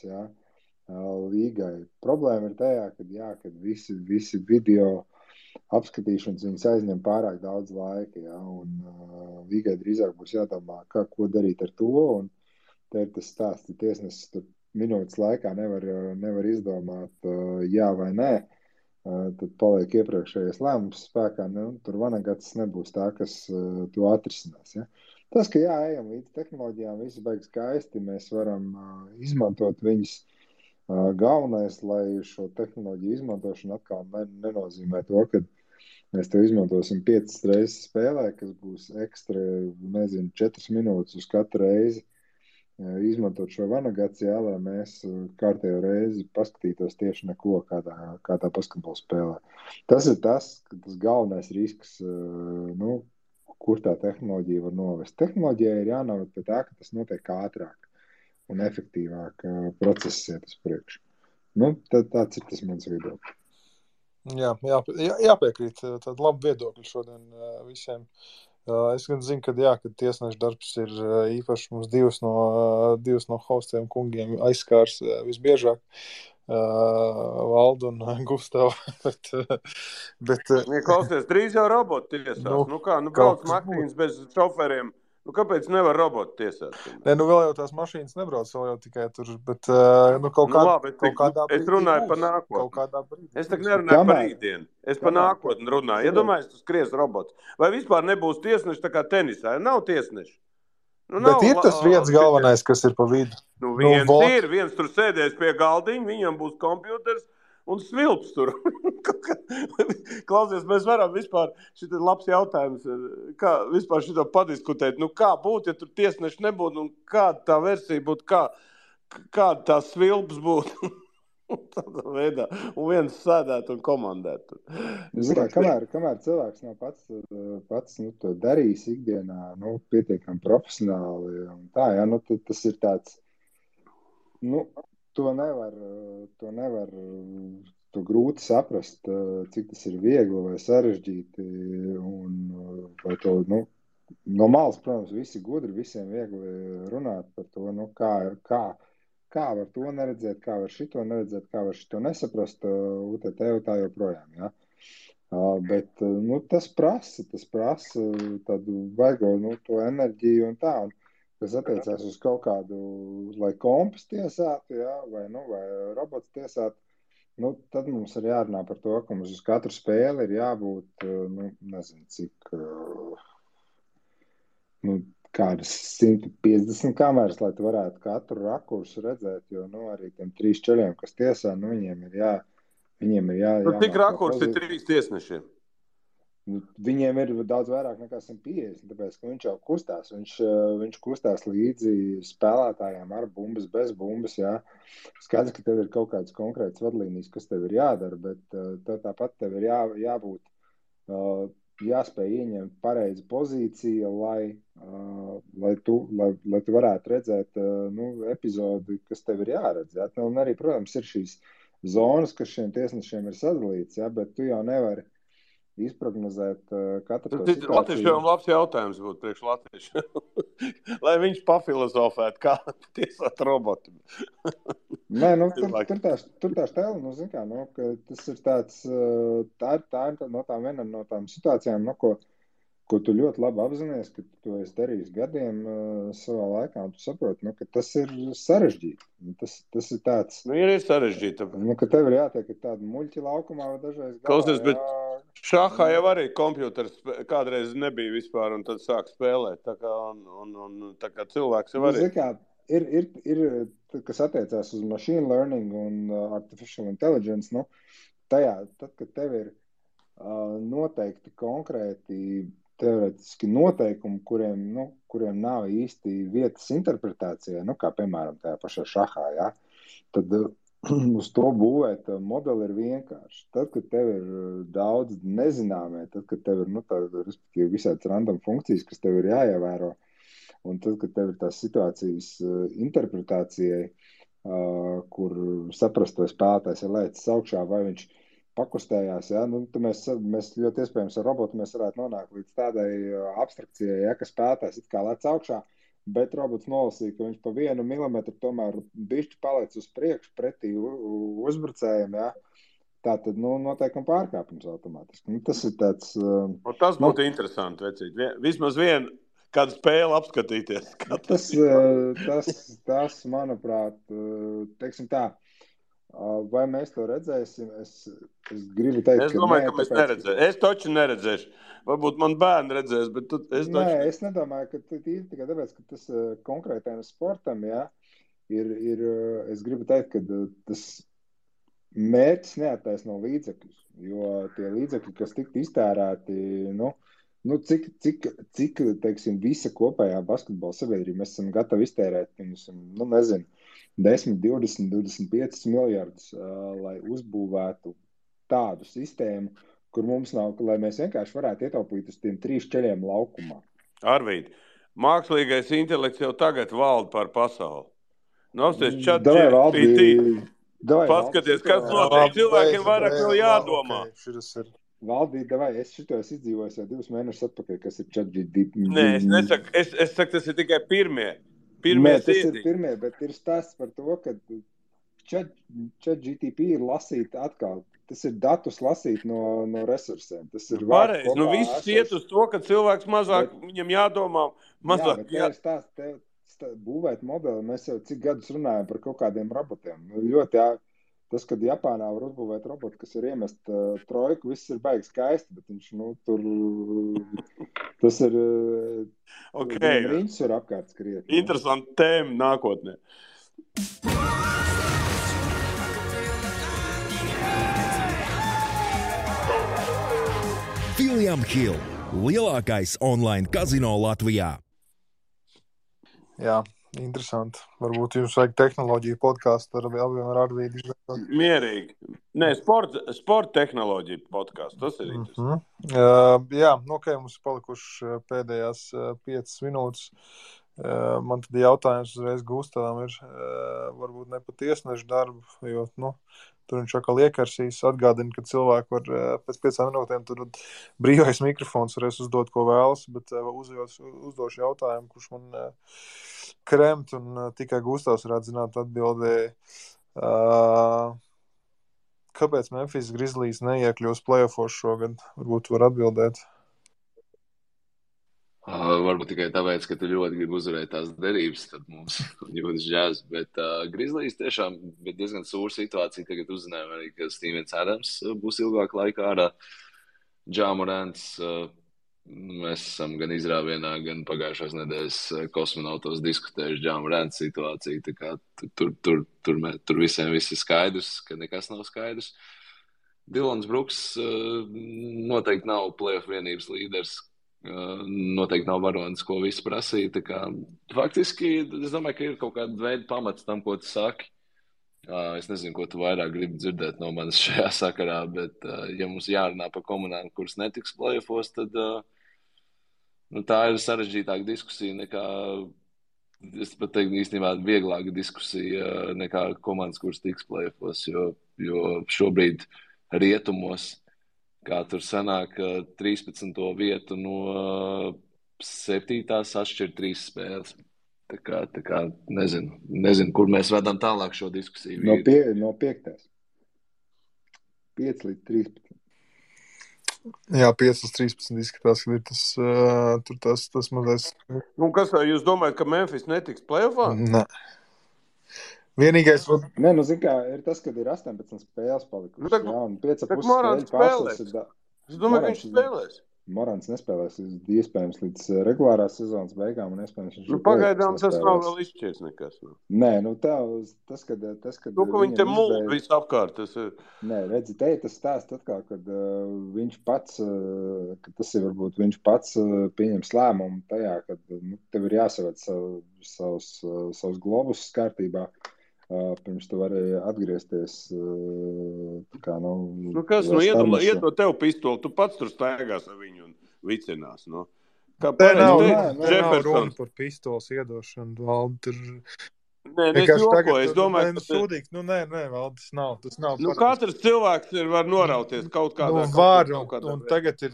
līgai. Problēma ir tajā, kad visi video apskatīšanas viņas aizņem pārāk daudz laika, un līgai drīzāk būs jādomā, ko darīt ar to, un te ir tas stāsts, ja tiesnesis tur minūtes laikā nevar izdomāt jā vai nē, tad paliek iepriekšējais lēmums spēkā, tur Vanagats nebūs tā, kas to atrisinās, Tas, ka ejam līdz tehnoloģijām, viss beigas skaisti, mēs varam izmantot viņas. Galvenais, lai šo tehnoloģiju izmantošanu atkal nenozīmē to, ka mēs to izmantosim 5 reizes spēlē, kas būs ekstra, 4 minūtes uz katru reizi izmantot šo Vanagats, lai mēs kārtējo reizi paskatītos tieši neko kādā basketbola spēlē. Tas ir tas galvenais risks, kur tā tehnoloģija var novest. Tehnoloģija ir jānoved pie tā, ka tas notiek ātrāk un efektīvāk process iet uz priekšu. Tāds ir tas mans viedoklis. Jāpiekrīt. Tad labi viedokļi šodien visiem. Es gan zinu, ka tiesneša darbs ir īpaši mums divas no hostiem kungiem aizskārs visbiežāk. Valdu un Gustavu. bet klausies, drīz jau roboti tiesās. Brauc mašīnas bez šoferiem. Kāpēc nevar roboti tiesāt? Vēl jau tās mašīnas nebrauc, vēl jau tikai tur, bet kādā brīdī es runāju par nākotni. Es tak nerunāju par rītdienu. Es par nākotni runāju. Iedomājies, tu skries robots. Vai vispār nebūs tiesneši tā kā tenisā? Nav tiesneši. Bet ir tas viens galvenais, kas ir pa vidu. Viens tur sēdēs pie galdiņa, viņam būs kompjuters un svilps tur. Klausies, mēs varam vispār, šit ir labs jautājums, kā vispār šito padiskutēt, kā būtu, ja tur tiesneši nebūtu, un kāda tā versija būtu, kāda tā svilps būtu. Tādā veidā, un viens sēdētu un komandētu. Kamēr cilvēks nav pats to darījis ikdienā, pietiekami profesionāli, un tā, tas ir tāds, to nevar grūti saprast, cik tas ir viegli vai sarežģīti, un vai to, no malas, protams, visi gudri, visiem viegli runāt par to, kā var to neredzēt, kā var šito neredzēt, kā var šito nesaprast, tā joprojām, Bet, tas prasa tādu vaigo, to enerģiju un tā, un kas attiecās uz kaut kādu, lai kompas tiesātu, vai robots tiesātu, tad mums ir jārunā par to, ka mums uz katru spēli ir jābūt, nezinu, cik, kādas 150 kameras, lai tu varētu katru rakursu redzēt, jo, arī tiem 3 čeļiem, kas tiesā, viņiem ir jā. Cik rakursi ir 3 tiesnešiem? Viņiem ir daudz vairāk nekā 150, tāpēc, ka viņš jau kustās. Viņš kustās līdzi spēlētājiem ar bumbas, bez bumbas. Jā. Skaidrs, ka tev ir kaut kādas konkrētas vadlīnijas, kas tev ir jādara, bet tāpat tev ir jābūt, jāspēj ieņemt pareizu pozīciju, lai tu varētu redzēt epizodi, kas tev ir jāredz. Jā. Un arī, protams, ir šīs zonas, kas šiem tiesnešiem ir sadalīts, jā, bet tu jau nevari izprognozēt katru to situāciju. Latviešiem labs jautājums būtu priekš latviešiem. Lai viņš pafilozofētu, kā tiesāt robotu. Nē, tur tā stēla, zin kā, ka tas ir tāds, tā ir viena no tām situācijām, ko tu ļoti labi apzinies, ka tu to esi darījis gadiem savā laikā, un tu saproti, ka tas ir sarežģīti. Tas ir tāds... ir sarežģīti. Ka tev ir jātiek tādu muļķi laukumā vai dažreiz galā. Klausies, bet šahā jau arī kompjuters kādreiz nebija vispār, un tad sāk spēlēt. Tā kā cilvēks jau arī... Ir, kas attiecās uz machine learning un artificial intelligence, tad, kad tev ir noteikti konkrēti teorētiski noteikumi, kuriem nav īsti vietas interpretācijā, kā piemēram tajā pašā šahā, jā, tad uz to būvēt modeli ir vienkārši. Tad, kad tev ir daudz nezināmie, tad, kad tev ir visāds random funkcijas, kas tev ir jāievēro, un tad, kad tev ir tās situācijas interpretācijai, kur saprast, vai spēlētājs ir lēcis augšā, vai viņš pakustējās, ja? Mēs ļoti iespējams ar robotu mēs varētu nonākt līdz tādai abstrakcijai, ja, ka spēlētājs it kā lec augšā, bet robots nolasīja, ka viņš pa 1 milimetru tomēr bišķi paliec uz priekšu pretī uzbrucējiem, ja? Tātad, noteikam pārkāpums automātiski. Tas ir tāds... Tas būtu interesanti, vecīt. Vismaz kādu spēli apskatīties. Tas, manuprāt, teiksim tā, vai mēs to redzēsim? Es gribu teikt, es domāju, ka mēs neredzēsim. Es taču neredzēšu. Varbūt man bērni redzēs, bet es nedomāju, ka tīri tikai tāpēc, ka tas konkrētajam sportam, jā, es gribu teikt, ka tas mērķis neattaisno līdzekļus, jo tie līdzekļi, kas tiktu iztērēti, cik teiksim, visa kopējā basketbola sabiedrība, mēs esam gatavi iztērēt, nezinu, 10, 20, 25 miljardus, lai uzbūvētu tādu sistēmu, kur mums nav, lai mēs vienkārši varētu ietaupīt uz tiem 3 ceļiem laukumā. Arvīd, mākslīgais intelekts jau tagad valda par pasauli. Apsties ChatGPT. Paskaties, kas notiek. Cilvēkiem vairāk vēl jādomā. Valdīt, es šito izdzīvoju jau 2 mēnešus atpakaļ, kas ir ChatGPT. Nē, es nesaku, es saku, tas ir tikai pirmie. Tas ir pirmie, bet ir stāsts par to, ka ChatGPT ir lasīt atkal. Tas ir datus lasīt no resursiem. Tas ir pareizi. Viss iet uz to, ka cilvēks mazāk, viņam jādomā mazāk. Jā, bet tā būvēt modeli, mēs jau cik gadus runājam par kaut kādiem robotiem. Ļoti tas, kad Japānā var uzbūvēt robotu, kas ir iemest trojku, viss ir baigi skaisti, bet viņš, tur, tas ir, riņķis var apkārt skriet. Interesanti tēma nākotnē. William Hill, lielākais online kazino Latvijā. Jā, interesanti. Varbūt jums vajag tehnoloģiju podkāstu ar Arvīdu izveidot. Mierīgi. Nē, sporta tehnoloģiju podkāstu. Tas ir interesanti. Jā, mums palikuši pēdējās 5 minūtes. Man tad jautājums uzreiz Gustavam ir varbūt ne pa tiesnešu darbu, jo, tur viņš atkal iekarsīs, atgādina, ka cilvēki var pēc 5 minūtēm tur brīvais mikrofons varēs uzdot, ko vēlas, bet uzdošu jautājumu, kurš man kremt, un tikai Gustavs varētu zināt atbildēji. Kāpēc Memphis Grizzlies neiekļūs play-offos šogad? Varbūt var atbildēt. Varbūt tikai tāpēc, ka tu ļoti gribi uzvarēt tās derības, tad mums jūtas žēs, bet Grizzlies tiešām bija diezgan sūra situācija. Tagad uzzinājām arī, ka Stevens Adams būs ilgāk laikā ārā. Ja Morants, mēs esam gan izrāvienā, gan pagājušās nedēļas kosmonautos diskutējuši Ja Morants situāciju, tā kā tur visiem viss ir skaidrs, ka nekas nav skaidrs. Dylans Bruks noteikti nav playoff vienības līderis. Noteikti nav varonis, ko visi prasīja. Tā kā, faktiski, es domāju, ka ir kaut kāda veida pamats tam, ko tu saki. Es nezinu, ko tu vairāk gribi dzirdēt no manis šajā sakarā, bet, ja mums jārunā par komanām, kuras netiks playoffos, tad tā ir sarežģītāka diskusija nekā, es pat teiktu, īstenībā vieglāka diskusija nekā komandas, kuras tiks playoffos, jo šobrīd rietumos, kā tur sanāk 13. vietu no 7. atšķir 3 spēles. Tā kā nezinu, kur mēs vedam tālāk šo diskusiju. No 5. 5 līdz 13. Jā, 5 līdz 13 izskatās, ka ir tas mazais. Kas jūs domājat, ka Memphis netiks playoffā? Nē. Vienīgais... Nē, zin kā, ir tas, kad ir 18 spēles palikušas. Jā, un 5,5 Morants spēles spēlēs. Es domāju, ka viņš spēlēs. Morants nespēlēs iespējams līdz regulārās sezonas beigām un iespējams viņš pagaidām tas nav vēl izšķirs nekas. Nē, tas, kad ka viņi te mūl visu apkārt. Nē, redzi, te tas stāst atkal, kad viņš pats, ka tas ir varbūt viņš pats pieņems lēmumu tajā, kad tev ir jāsaved savus globus kārtībā. Pirms tu vari atgriezties kā, kas, iedod tev pistoli, tu pats tur staigās ar viņu un vicinās, Kā nav runa par pistoles iedošanu, Valdi, tur... Nē, es jokoju, es domāju, ka... Sūdīgs, nē, Valdi, tas nav. Katrs cilvēks var norauties kaut kādā... Var, un tagad ir...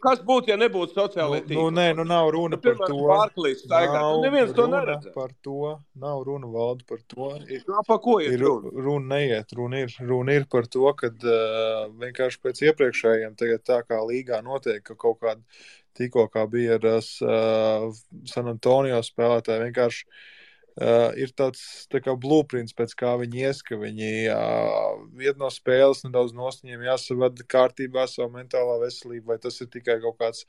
kas būtu, ja nebūtu sociālai tīkli? Nav runa par to. Pārklīs staigāt, neviens to neredz. Nav runa, Valdi, par to. Par ko ir runa? Runa neiet, runa ir par to, kad vienkārši pēc iepriekšējiem tagad tā kā līgā notiek, ka kaut kāda tikko kā bija ar San Antonio spēlētāji vienkārši ir tāds tā kā blueprints, pēc kā viņi ies, ka viņi iet no spēles nedaudz nost, viņiem jāsavada kārtībā savu mentālā veselību, vai tas ir tikai kaut kāds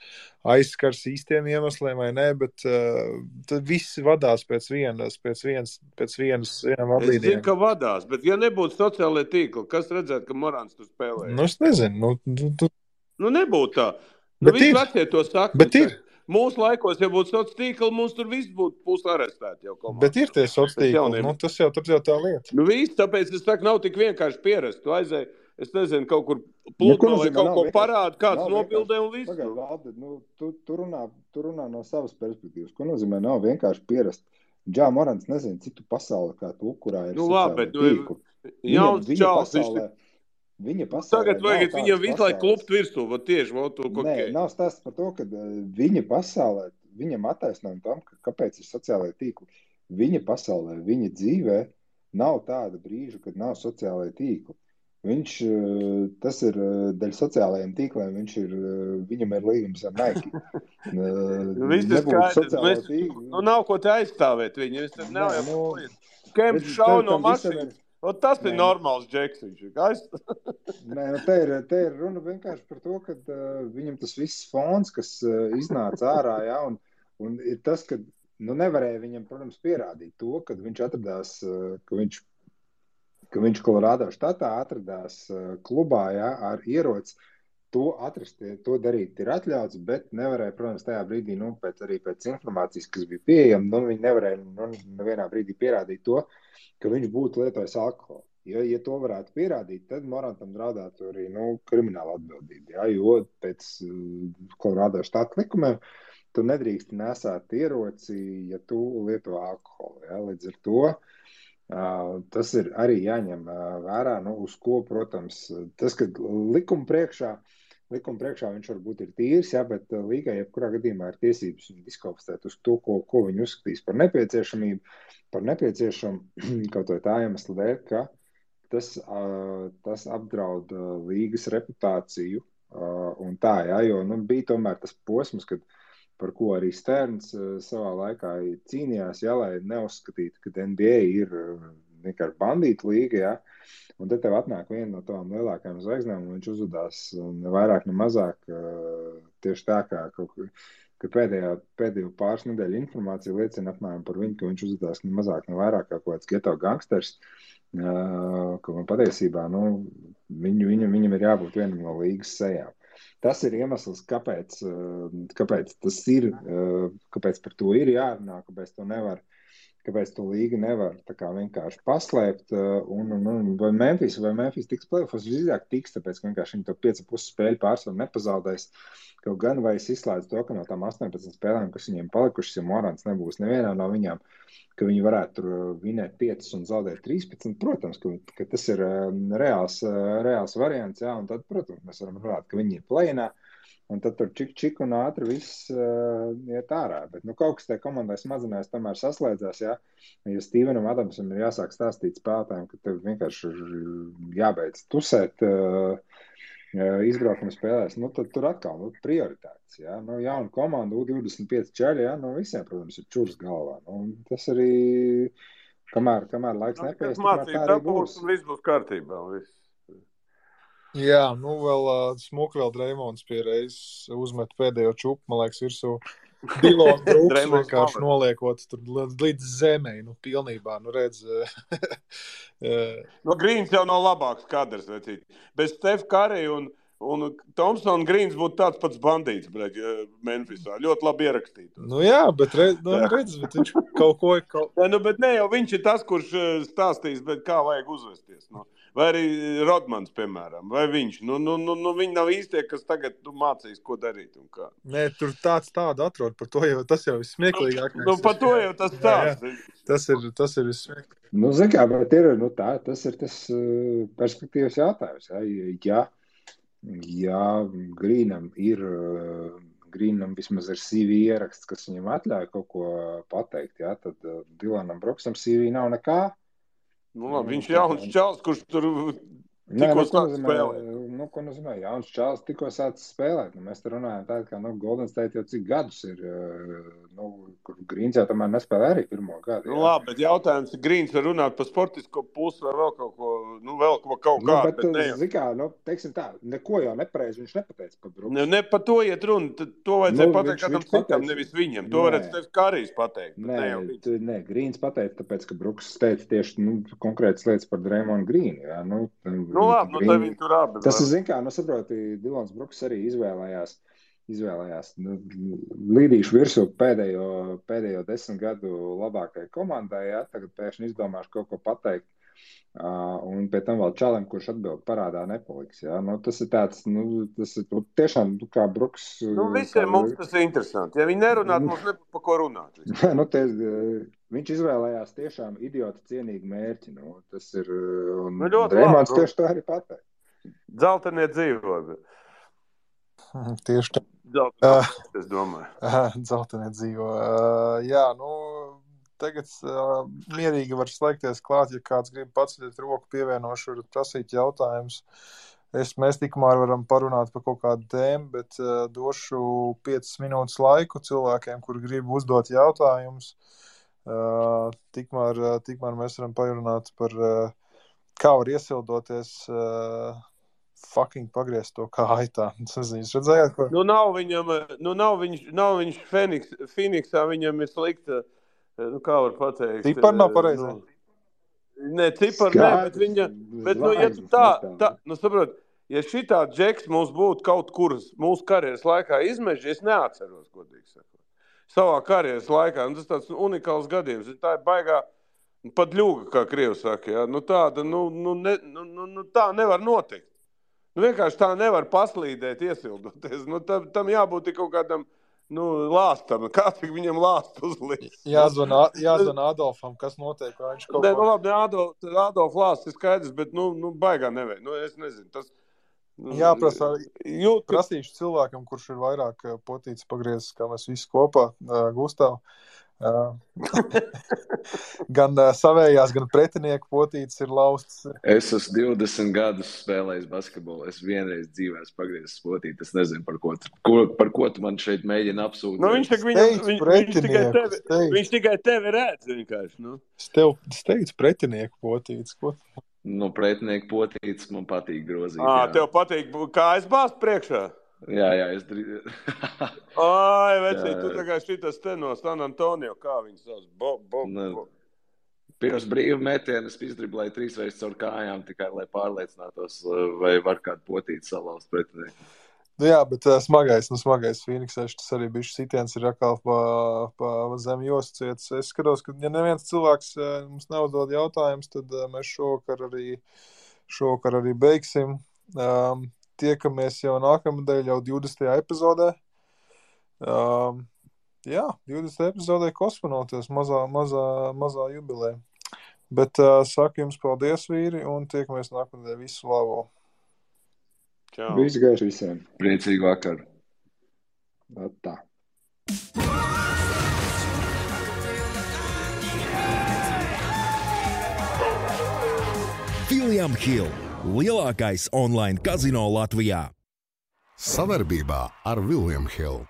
aizskars īstiem iemesliem vai nē, bet tad visi vadās pēc vienas vadlīnijām. Es zinu, ka vadās, bet ja nebūtu sociālai tīkli, kas redzētu, ka Morants tur spēlē? Es nezinu. Nebūtu tā. Visi vecie to saka. Bet ir. Mūsu laikos, ja būtu sociālai tīkli, mums tur viss būtu arestēti jau komandā. Bet ir tie sociālai tīkli, tas jau tā lieta. Viss, tāpēc es saku, nav tik vienkārši pierast. Tu aizēji, es nezinu, kaut kur plūtno vai kaut ko parāda, kāds nobildē un viss. Pagaid, Valdi, tu runā no savas perspektīvas. Ko nozīmē nav vienkārši pierast? Džā Morants nezinu, citu pasauli, kā tu, kurā ir sociālai tīkli. Jauns čals, Viņa pasaulē tagad vajag viņam visu laiku klupt virsū, tieši Nē, nav stāsts par to, ka viņa pasaulē, viņam attaisnojumi tam, kāpēc ir sociālai tīkli. Viņa pasaulē, viņa dzīvē nav tāda brīža, kad nav sociālai tīkli. Tas ir daļa sociālajiem tīkliem, viņam ir līgums ar Nike. Viss ir skaidrs, nav ko te aizstāvēt viņu, es tad nav jau Kemps šau no mašīnas. Tas ir normāls džeks, viņš ir. Nē, te ir runa vienkārši par to, ka viņam tas viss fons, kas iznāca ārā, un ir tas, ka nevarēja viņam, protams, pierādīt to, kad viņš atradās, ka viņš Kolorādo štatā atradās klubā, ar ieroci. To atrast, to darīt ir atļauts, bet nevarēja, protams, tajā brīdī, pēc informācijas, kas bija pieejama, viņi nevarēja nevienā brīdī pierādīt to, ka viņš būtu lietojis alkoholu. Ja to varētu pierādīt, tad Morantam draudētu arī krimināla atbildība. Jo pēc Kolorādo štata likumiem tu nedrīkst nesāt ieroci, ja tu lieto alkoholu. Līdz ar to tas ir arī jāņem vērā, uz ko, protams, tas, ka likuma priekšā viņš varbūt ir tīrs, bet līgai jebkurā gadījumā ir tiesības viņu diskvalificēt uz to, ko viņi uzskatīs par nepieciešamību, kaut vai tā iemesla dēļ, ka tas apdraud līgas reputāciju un tā, jo bija tomēr tas posms, par ko arī Sterns savā laikā cīnījās, lai neuzskatītu, ka NBA ir vienkārši bandīta līga, un tad tev atnāk viena no tām lielākajām zvaigznēm, un viņš uzvedās ne vairāk, ne mazāk tieši tā, kā ka pēdējo pāris nedēļu informācija liecina apmēram par viņu, ka viņš uzvedās ne mazāk, ne vairāk kā kaut kāds geto gangsters, ka man patiesībā, viņam ir jābūt vienam no līgas sejām. Tas ir iemesls, kāpēc tas ir, kāpēc par to ir jārunā, kāpēc to līga nevar tā kā vienkārši paslēpt, vai Memphis tiks play-offos, visdrīzāk tiks, tāpēc, ka vienkārši viņi to 5,5 spēļu pārsvaru nepazaudēs, kaut gan vai es izslēdzu to, ka no tām 18 spēlēm, kas viņiem palikušas, ja Morants nebūs nevienā no viņām, ka viņi varētu tur vinēt 5 un zaudēt 13, protams, ka tas ir reāls variants, jā, un tad, protams, mēs varam runāt, ka viņi ir play-inā, un tad tur čik un ātri viss iet ārā. Bet kaut kas tajā komandai smadzenēs tomēr saslēdzās, ja Stevenam Adamsam ir jāsāk stāstīt spēlētājiem, ka tev vienkārši jābeidz tusēt izbraukuma spēlēs, tad tur atkal prioritātes. Ja? Jauna komanda, U25 čaļi, ja? Visiem, protams, ir čurs galvā. Tas arī, kamēr laiks nepaies, tikmēr tā arī būs. Viss būs kārtībā. Viss. Jā, vēl smuki vēl Dreimonds pie reizes uzmet pēdējo čupu, man liekas, virsū Dylon Brooks vienkārši noliekot tur līdz zemei, pilnībā, redz. Greens jau nav labāks kadrs, vecīt. Bez Steph Curry un Thompson Greens būtu tāds pats bandīts, Memphisā. Ļoti labi ierakstīt. Jā, bet redz, bet viņš kaut ko... bet ne jau viņš ir tas, kurš stāstīs, bet kā vajag uzvesties, Vai arī Rodmans, piemēram, vai viņš. Viņi nav īstie, kas tagad mācīs, ko darīt un kā. Nē, tur tādu atrod, par to jau tas jau ir smieklīgākais. Par to jau tas stāsts. Tas ir vissmieklīgāk. Zin kā, bet tas ir tas perspektīvas jautājums. Ja Greenam vismaz ir CV ieraksts, kas viņam atļauj kaut ko pateikt, tad Dylonam Brooksam CV nav nekā. Viņš ir jauns čals, kurš tur tikko sāk spēlēt. Ko nozīmē? Jauns čals tikko sāk spēlēt. Mēs te runājam tā, ka Golden State jau cik gadus ir, kur Greens jau tomēr nespēlē arī pirmo gadu. Labi, bet jautājums ir, Greens var runāt par sportisko pusi vai vēl kaut ko, teiksim tā, neko jau nepareizi viņš nepateica par Brooks. Ne par to iet runa, to vajadzēja pateikt kādam citam, nevis viņam. To varētu Steph Currys pateikt. Nē, Greens pateica, tāpēc, ka Brooks teica tieši konkrētas lietas par Draymond Greenu. Jā, labi, tā viņi tur abi. Tas ir, zin kā, saproti, Dylons Brooks arī izvēlējās līdīšu virsū pēdējo 10 gadu labākai komandai, tagad pēkšņi izdomāšu kaut ko pateikt, un pie tam vēl čalim, kurš atbild parādā nepaliks, tas ir tāds, tas ir tiešām, kā Brooks. Visiem mums tas ir interesanti, ja viņi nerunāt, mums nebūtu pa ko runāt. Viņš izvēlējās tiešām idiota cienīgu mērķi, tas ir, un Dreimonds tieši tā arī pateikt. Dzeltenie dzīvo. Tieši tā. Es domāju. Dzeltenie dzīvo. Tagad mierīgi var slēgties klāt, ja kāds grib paceļot roku, pievienošu, var prasīt jautājumus. Mēs tikmēr varam parunāt par kaut kādu tēmu, bet došu 5 minūtes laiku cilvēkiem, kuri grib uzdot jautājumus. Tikmēr mēs varam parunāt par kā var iesildoties fucking pagriezt to kā aitā. Jūs redzējāt, ko? Nav viņš Phoenixā, viņam ir slikta, kā var pateikt. Cipar nav pareizē. Nē, cipar nē, bet viņa, ja tu tā, saprot, ja šitā džeks mums būtu kaut kur mūsu karjeras laikā izmeži, es neatceros, godīgi sakot. Savā karjeras laikā, tas tāds unikāls gadījums, tā ir baigā pat ļuga, kā Krievs saka, tāda, tā nevar notikt. Vienkārši tā nevar paslīdēt, iesildoties. Tam jābūt kaut kādam, lāstam. Kā cik viņam lāstu uzlikt? Jāzvana Adolfam, kas notiek, vai viņš kaut ko... Labi, Adolf lāsts ir skaidrs, bet, baigā nevajag. Es nezinu, tas... Jāprasa, prasīšu cilvēkam, kurš ir vairāk potīts pagriezis, kā mēs visi kopā, Gustav. Gan savējās, gan pretinieku potītes ir laustas. Es esmu 20 gadus spēlējis basketbolu. Es vienreiz dzīvē esmu pagriezis potīti. Es nezinu, par ko tu man šeit mēģina apsūdzēt. Viņš tikai tevi redz vienkārši. Es teicu pretinieku potītes. Ko? Pretinieku potītes man patīk grozīt. Tev patīk kājas bāzt priekšā? Jā, es drīz. Ai, vecīt, tu tā kā šitas te no San Antonio, kā viņas sauc? Pirms brīva metiena es izdriblēju 3 reizes caur kājām, tikai lai pārliecinātos, vai var kādu potīti salauzt pretinieku. Jā, bet smagais Phoenixā, tas arī bišķi sitiens ir atkal pa zem joscietas. Es skatos, ka ja neviens cilvēks mums neuzdod jautājumus, tad mēs šovakar arī beigsim. Tiekamies jau nākamnedēļ, jau 20. epizodē. Jā, 20. epizodē kosmonautos, mazā jubilē. Bet saku jums paldies, vīri, un tiekamies nākamnedēļ. Visu labu! Čau! Visu gaišu visiem! Priecīgu vakaru! Tā. William Hill, lielākais online kazino Latvijā. Savarbībā ar William Hill.